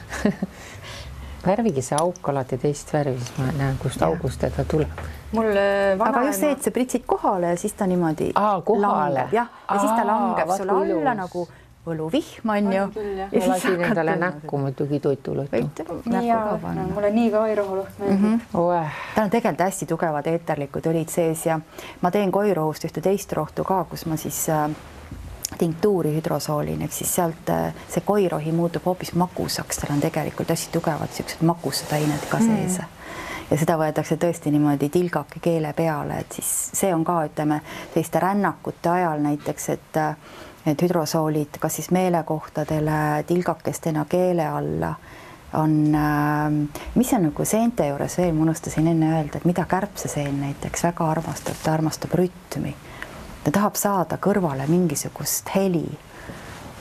Speaker 1: Värvigi see auk alati teist värvi, siis ma näen, kust august teda tuleb.
Speaker 2: Aga just see, et sa pritsid kohale ja siis ta niimoodi langeb. Ja siis ta langeb sulle alla nagu võluvihm on ju.
Speaker 1: Ma lasin endale näkku muidugi toitulõttu.
Speaker 3: Mulle nii ka koirohuluht meeldib.
Speaker 2: Ta on tegelikult hästi tugevad eeterlikud õlid sees ja ma teen koirohust ühte teist rohtu ka, kus ma siis tinktuuri hüdrosoolin, ehk siis sealt see koirohi muutub hoopis makusaks, tal on tegelikult hästi tugevad siuksed makused ained ka sees. Ja seda võetakse tõesti niimoodi tilgake keele peale, et siis see on ka, ütleme, teiste rännakute ajal näiteks, et hüdrosoolid kas siis meelekohtadele tilgakestena keele alla on, mis on nagu seente juures veel, ma unustasin enne öelda, et mida kärbseseen näiteks väga armastab, ta armastab rütmi. Ta tahab saada kõrvale mingisugust heli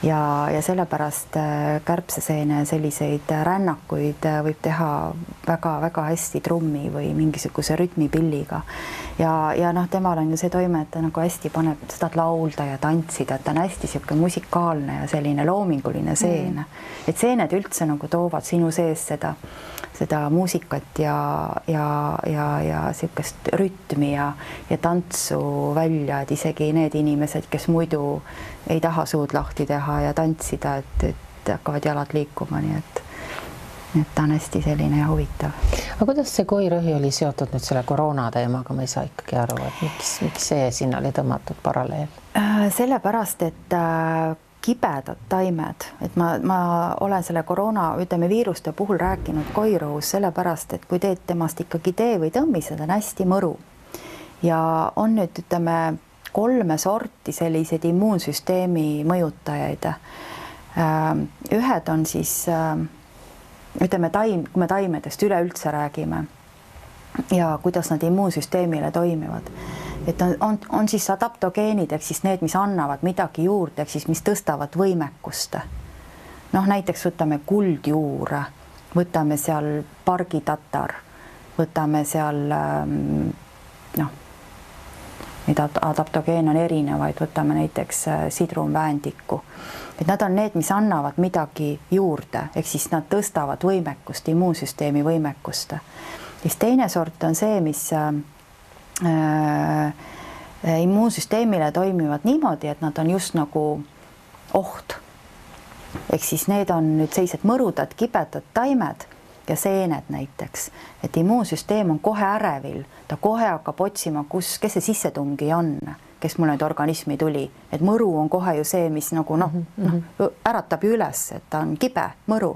Speaker 2: ja sellepärast kärbseseene selliseid rännakuid võib teha väga-väga hästi trummi või mingisuguse rütmipilliga. ja noh, temal on ju see toime, et ta nagu hästi paneb, sa tahad laulda ja tantsida, et ta on hästi sihuke musikaalne ja selline loominguline seene. Et seened üldse nagu toovad sinu sees seda muusikat ja sihukest rütmi ja tantsu välja, et isegi need inimesed, kes muidu ei taha suud lahti teha ja tantsida, et hakkavad jalad liikuma, nii et ta on hästi selline ja huvitav.
Speaker 1: Aga kuidas see koirõhi oli seotud nüüd selle koroona teemaga, ma ei saa ikkagi aru, et miks see sinna oli tõmmatud paralleel?
Speaker 2: Sellepärast, et kibedad taimed, et ma olen selle koroona, ütleme viiruste puhul rääkinud koirõhus sellepärast, et kui teed temast ikkagi tee või tõmmised, on hästi mõru. Ja on nüüd, ütleme, 3 sorti selliseid immuunsüsteemi mõjutajaid. Ühed on siis ütleme kui me taimedest üleüldse räägime ja kuidas nad immuunsüsteemile toimivad, et on siis adaptogeenid, ehk siis need, mis annavad midagi juurde, ehk siis mis tõstavad võimekust. Noh, näiteks võtame kuldjuure, võtame seal pargitatar, võtame seal noh, mida adaptogeene on erinevaid, võtame näiteks sidrunväändiku. Et nad on need, mis annavad midagi juurde, ehk siis nad tõstavad võimekust, immuunsüsteemi võimekust. Ja teine sort on see, mis immuunsüsteemile toimivad niimoodi, et nad on just nagu oht. Ehk siis need on nüüd sellised mõrudad, kibedad taimed ja seened näiteks, et immuunsüsteem on kohe ärevil, ta kohe hakkab otsima, kes see sissetungi on, kes mul nüüd organismi tuli, et mõru on kohe ju see, mis nagu äratab ju üles, et ta on kibe mõru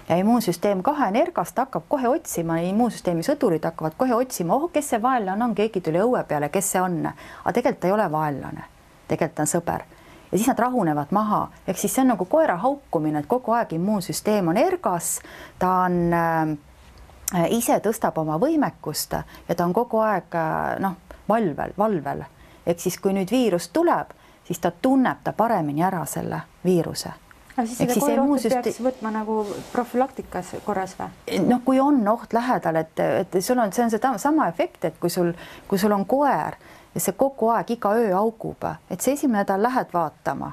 Speaker 2: ja immuunsüsteem kohe energast hakkab kohe otsima, immuunsüsteemi sõdurid hakkavad kohe otsima, kes see vaenlane on, keegi tuli õue peale, kes see on, aga tegelikult ei ole vaenlane, tegelikult on sõber. Ja siis nad rahunevad maha, ehk siis see on nagu koera haukumine, et kogu aeg immuunsüsteem on ergas, ta on ise tõstab oma võimekust ja ta on kogu aeg valvel. Ehk siis kui nüüd viirus tuleb, siis ta tunneb ta paremini ära selle viiruse.
Speaker 3: Aga siis seda koerohtu peaks võtma nagu profülaktikas korras või?
Speaker 2: No kui on oht lähedal, et see on sama efekt, et kui sul on koer ja see kogu aeg iga öö augub, et see esimene nädal lähed vaatama,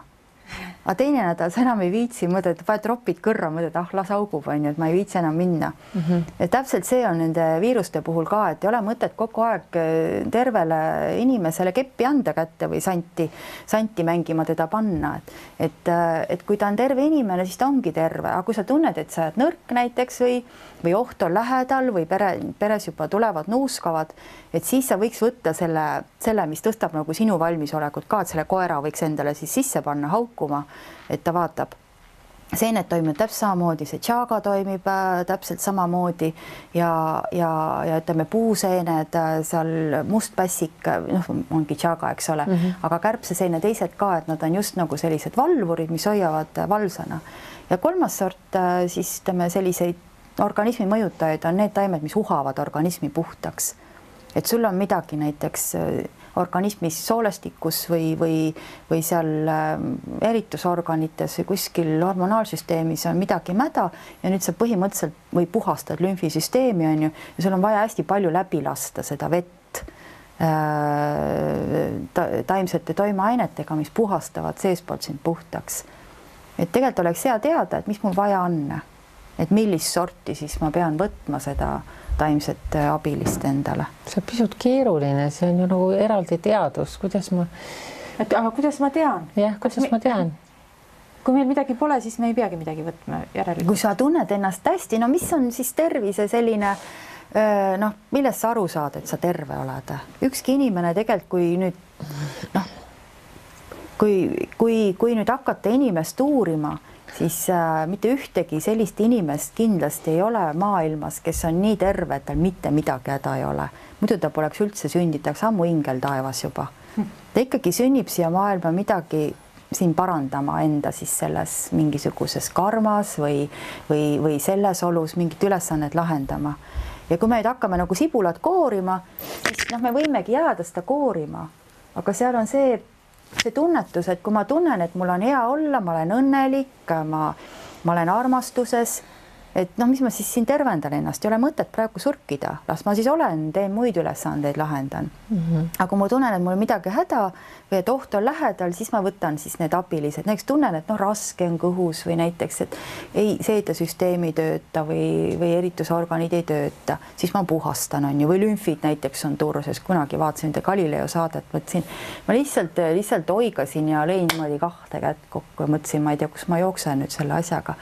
Speaker 2: aga teine nädal sa enam ei viitsi mõelda, et paned ropid kõrra, mõtled, las augub, et ma ei viitsi enam minna. Ja täpselt see on nende viiruste puhul ka, et ei ole mõtet kogu aeg tervele inimesele keppi anda kätte või santi mängima teda panna. Et kui ta on terve inimene, siis ta ongi terve, aga kui sa tunned, et sa oled nõrk näiteks või oht on lähedal või peres juba tulevad nuuskavad, et siis sa võiks võtta selle, mis tõstab nagu sinu valmisolekut ka, et selle koera võiks endale siis sisse panna haukuma, et ta vaatab. Seened toimib täpselt samamoodi, see tšaaga toimib täpselt samamoodi ja ütleme puuseened, seal mustpässik, ongi tšaaga, eks ole, aga kärbseseene teised ka, et nad on just nagu sellised valvurid, mis hoiavad valvsana. Ja 3. sort siis ütleme selliseid organismi mõjutajaid on need taimed, mis uhavad organismi puhtaks. Et sul on midagi näiteks organismis soolestikus või seal eritusorganites või kuskil hormonaalsüsteemis on midagi mäda ja nüüd sa põhimõtteliselt või puhastad lümfisüsteemi on ju ja sul on vaja hästi palju läbi lasta seda vett taimsete toimeainetega, mis puhastavad seespoolt sind puhtaks. Et tegelikult oleks hea teada, et mis mul vaja on, et millist sorti siis ma pean võtma seda taimset abilist endale.
Speaker 1: See on pisut keeruline, see on ju nagu eraldi teadus, kuidas ma...
Speaker 3: Aga kuidas ma tean?
Speaker 1: Jah, kuidas ma tean?
Speaker 3: Kui meil midagi pole, siis me ei peagi midagi võtma järelikult.
Speaker 2: Kui sa tunned ennast hästi, no mis on siis tervise selline, millest sa aru saad, et sa terve oled? Ükski inimene tegelikult, kui nüüd, kui nüüd hakata inimest uurima, siis mitte ühtegi sellist inimest kindlasti ei ole maailmas, kes on nii terve, et tal mitte midagi häda ei ole. Muidu ta poleks üldse sünditaks ammu ingel taevas juba. Ta ikkagi sünnib siia maailma midagi siin parandama enda siis selles mingisuguses karmas või selles olus mingit ülesannet lahendama. Ja kui me nüüd hakkame nagu sibulat koorima, siis me võimegi jääda seda koorima, aga seal on see tunnetus, et kui ma tunnen, et mul on hea olla, ma olen õnnelik, ma olen armastuses, et noh, mis ma siis siin tervendan ennast, ei ole mõtet praegu surkida, las ma siis olen, teen muid ülesandeid, lahendan. Aga kui ma tunnen, et mul on midagi häda või et oht on lähedal, siis ma võtan siis need abilised, näiteks tunnen, et noh, raske on kõhus või näiteks, et ei seedesüsteem ei tööta või eritusorganid ei tööta, siis ma puhastan, on ju, või lümfid näiteks on turses, kunagi vaatasin Galileo saadet, mõtlesin, ma lihtsalt oigasin ja lõin niimoodi 2 kätt kokku ja mõtlesin, ma ei tea, kus ma jooksen nüüd selle asjaga.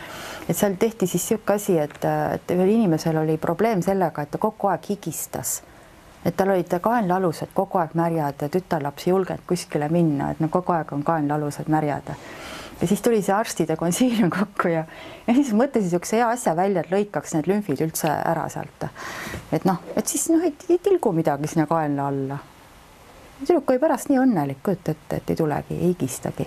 Speaker 2: Et seal tehti siis siuke asi, et ühel inimesel oli probleem sellega, et ta kogu aeg higistas. Et tal olid kaenlalused kogu aeg märjad ja tütarlaps ei julgenud kuskile minna, et no kogu aeg on kaenlalused märjad. Ja siis tuli see arstide konsiilium kokku ja siis mõtlesin niisuguse hea asja välja, et lõikaks need lümfid üldse ära sealt. Et noh, et siis noh, ei tilgu midagi sinna kaenla alla. Tüdruk oli pärast nii õnnelik, kujuta ette, et ei tulegi, ei higistagi.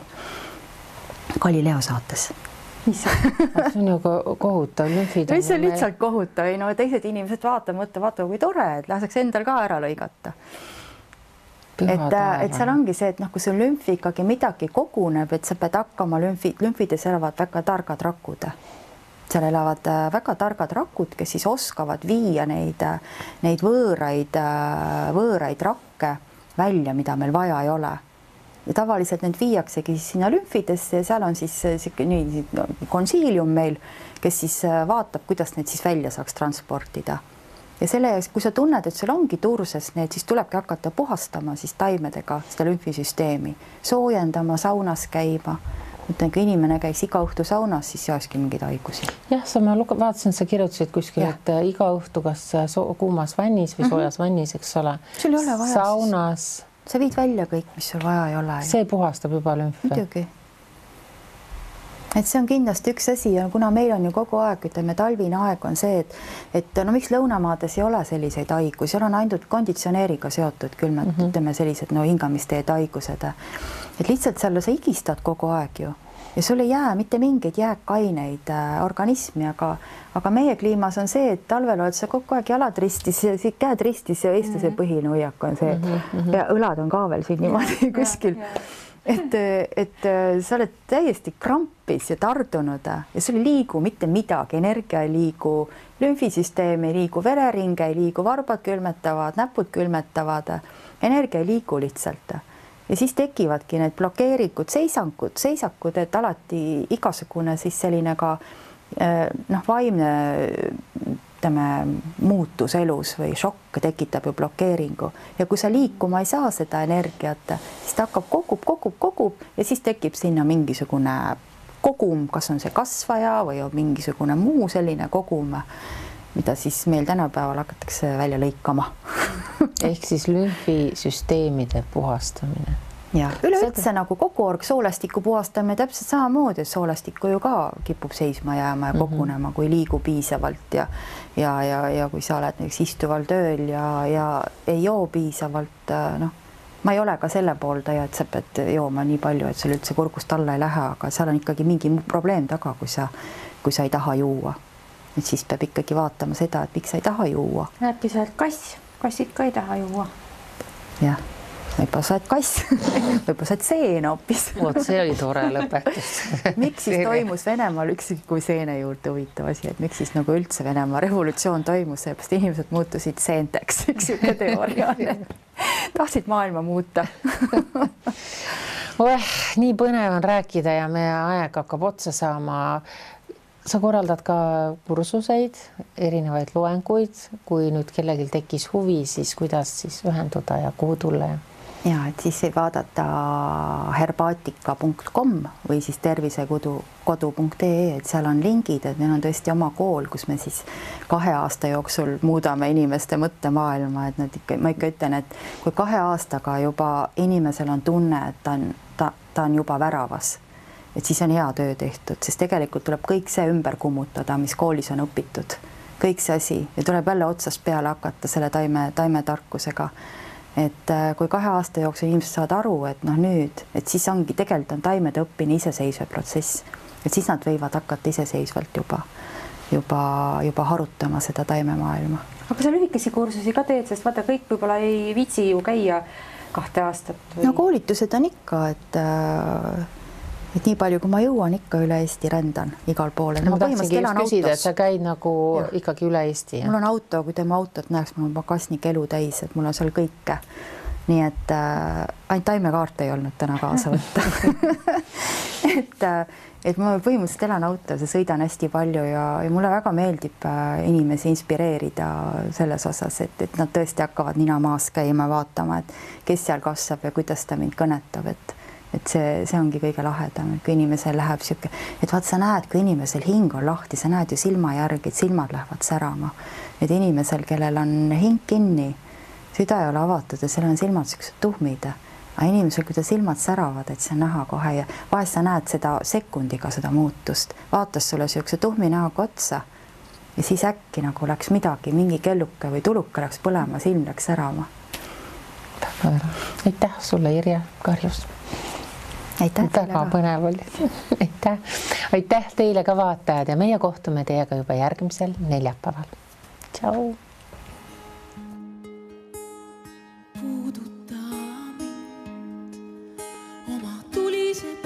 Speaker 2: Galileo saates.
Speaker 1: See on ju kohutav, lümfid.
Speaker 2: See on lihtsalt kohutav, ei no teised inimesed vaata, kui tore, et laseks endal ka ära lõigata. Et seal ongi see, et noh, kui sul lümfi ikkagi midagi koguneb, et sa pead hakkama lümfides elavad väga targad rakud. Seal elavad väga targad rakud, kes siis oskavad viia neid võõraid rakke välja, mida meil vaja ei ole. Ja tavaliselt need viiaksegi sinna lümfidesse ja seal on siis konsiilium meil, kes siis vaatab, kuidas need siis välja saaks transportida. Ja selle jaoks, kui sa tunned, et sul ongi turses need, siis tulebki hakata puhastama siis taimedega seda lümfisüsteemi, soojendama, saunas käima. Mõtlen, kui inimene käiks iga õhtu saunas, siis ei olekski mingeid haigusi.
Speaker 1: Jah, ma vaatasin, sa kirjutasid kuskil, et iga õhtu kas kuumas vannis või soojas vannis, eks ole.
Speaker 2: Sul ei ole vaja
Speaker 1: saunas.
Speaker 2: Sa viid välja kõik, mis sul vaja ei ole.
Speaker 1: See puhastab juba lümfe.
Speaker 2: Muidugi. Et see on kindlasti üks asi ja kuna meil on ju kogu aeg, ütleme, talvine aeg on see, et no miks lõunamaades ei ole selliseid haigusi, seal on ainult konditsioneeriga seotud külmad, ütleme sellised hingamisteed haigused. Et lihtsalt seal sa higistad kogu aeg ju ja sul ei jää mitte mingeid jääkaineid organismi, aga meie kliimas on see, et talvel oled sa kogu aeg jalad ristis, käed ristis ja eestlase põhine hoiak on see ja õlad on ka veel siin niimoodi kuskil. Et sa oled täiesti krampis ja tardunud ja sul ei liigu mitte midagi, energia ei liigu, lümfisüsteem ei liigu, vereringe ei liigu, varbad külmetavad, näpud külmetavad, energia ei liigu lihtsalt. Ja siis tekivadki need blokeerikud, seisakud, et alati igasugune siis selline ka vaimne muutus elus või šokk tekitab ju blokeeringu ja kui sa liikuma ei saa seda energiat, siis ta hakkab kogub ja siis tekib sinna mingisugune kogum, kas on see kasvaja või on mingisugune muu selline kogum, mida siis meil tänapäeval hakatakse välja lõikama.
Speaker 1: Ehk siis lümfisüsteemide puhastamine.
Speaker 2: Ja üleüldse nagu kogu soolestiku puhastamine täpselt samamoodi, et soolestikku ju ka kipub seisma jääma ja kogunema, kui liigu piisavalt ja kui sa oled näiteks istuval tööl ja ei joo piisavalt, ma ei ole ka selle pooldaja, et sa pead jooma nii palju, et sul üldse kurgust alla ei lähe, aga seal on ikkagi mingi probleem taga, kui sa ei taha juua. Et siis peab ikkagi vaatama seda, et miks sa ei taha juua.
Speaker 3: Äkki sa oled kassid ka ei taha juua.
Speaker 2: Jah. Võib-olla sa oled kass, võib-olla sa oled seen hoopis.
Speaker 1: See oli tore lõpetus.
Speaker 2: Miks siis toimus Venemaal kui seene juurde huvitav asi, et miks siis nagu üldse Venemaa revolutsioon toimus, seepärast inimesed muutusid seenteks, üks siuke teooria. Tahtsid maailma muuta.
Speaker 1: Nii põnev on rääkida ja meie aeg hakkab otsa saama. Sa korraldad ka kursuseid, erinevaid loenguid, kui nüüd kellelgi tekkis huvi, siis kuidas siis ühenduda ja kuhu tulla?
Speaker 2: Ja, et siis võib vaadata herbaatika.com või siis tervisekodu.ee, et seal on lingid, et meil on tõesti oma kool, kus me siis 2 aasta jooksul muudame inimeste mõttemaailma, et ma ikka ütlen, et kui 2 aastaga juba inimesel on tunne, et ta on juba väravas, et siis on hea töö tehtud, sest tegelikult tuleb kõik see ümber kummutada, mis koolis on õpitud, kõik see asi ja tuleb jälle otsast peale hakata selle taimetarkusega. Et kui 2 aasta jooksul inimesed saavad aru, et nüüd, et siis ongi tegelikult on taimede õppimine iseseisva protsess, et siis nad võivad hakata iseseisvalt juba harutama seda taimemaailma.
Speaker 3: Aga sa lühikesi kursusi ka teed, sest vaata kõik võib-olla ei viitsi ju käia 2 aastat.
Speaker 2: No koolitused on ikka, et nii palju, kui ma jõuan, ikka üle Eesti rändan igal pool.
Speaker 1: Ma tahtsingi just küsida, et sa käid nagu ikkagi üle Eesti.
Speaker 2: Mul on auto, kui tema autot näeks, mul on pagasnik elu täis, et mul on seal kõike. Nii et ainult taimekaart ei olnud täna kaasa võtta. et ma põhimõtteliselt elan autos ja sõidan hästi palju ja mulle väga meeldib inimesi inspireerida selles osas, et nad tõesti hakkavad nina maas käima, vaatama, et kes seal kasvab ja kuidas ta mind kõnetab, et see ongi kõige lahedam, kui inimesel läheb sihuke, et vaat sa näed, kui inimesel hing on lahti, sa näed ju silma järgi, et silmad lähevad särama. Et inimesel, kellel on hing kinni, süda ei ole avatud ja seal on silmad siuksed tuhmid. Aga inimesel, kui ta silmad säravad, et see on näha kohe ja vahest sa näed seda sekundiga seda muutust. Vaatas sulle siukse tuhmi näoga otsa ja siis äkki nagu läks midagi, mingi kelluke või tuluke läks põlema, silm läks särama.
Speaker 1: Aitäh sulle, Irja Karjus. Väga põnev oli. Aitäh teile ka vaatajad ja meie kohtume teiega juba järgmisel neljapäeval. Tšau! Puuduta mind oma tulise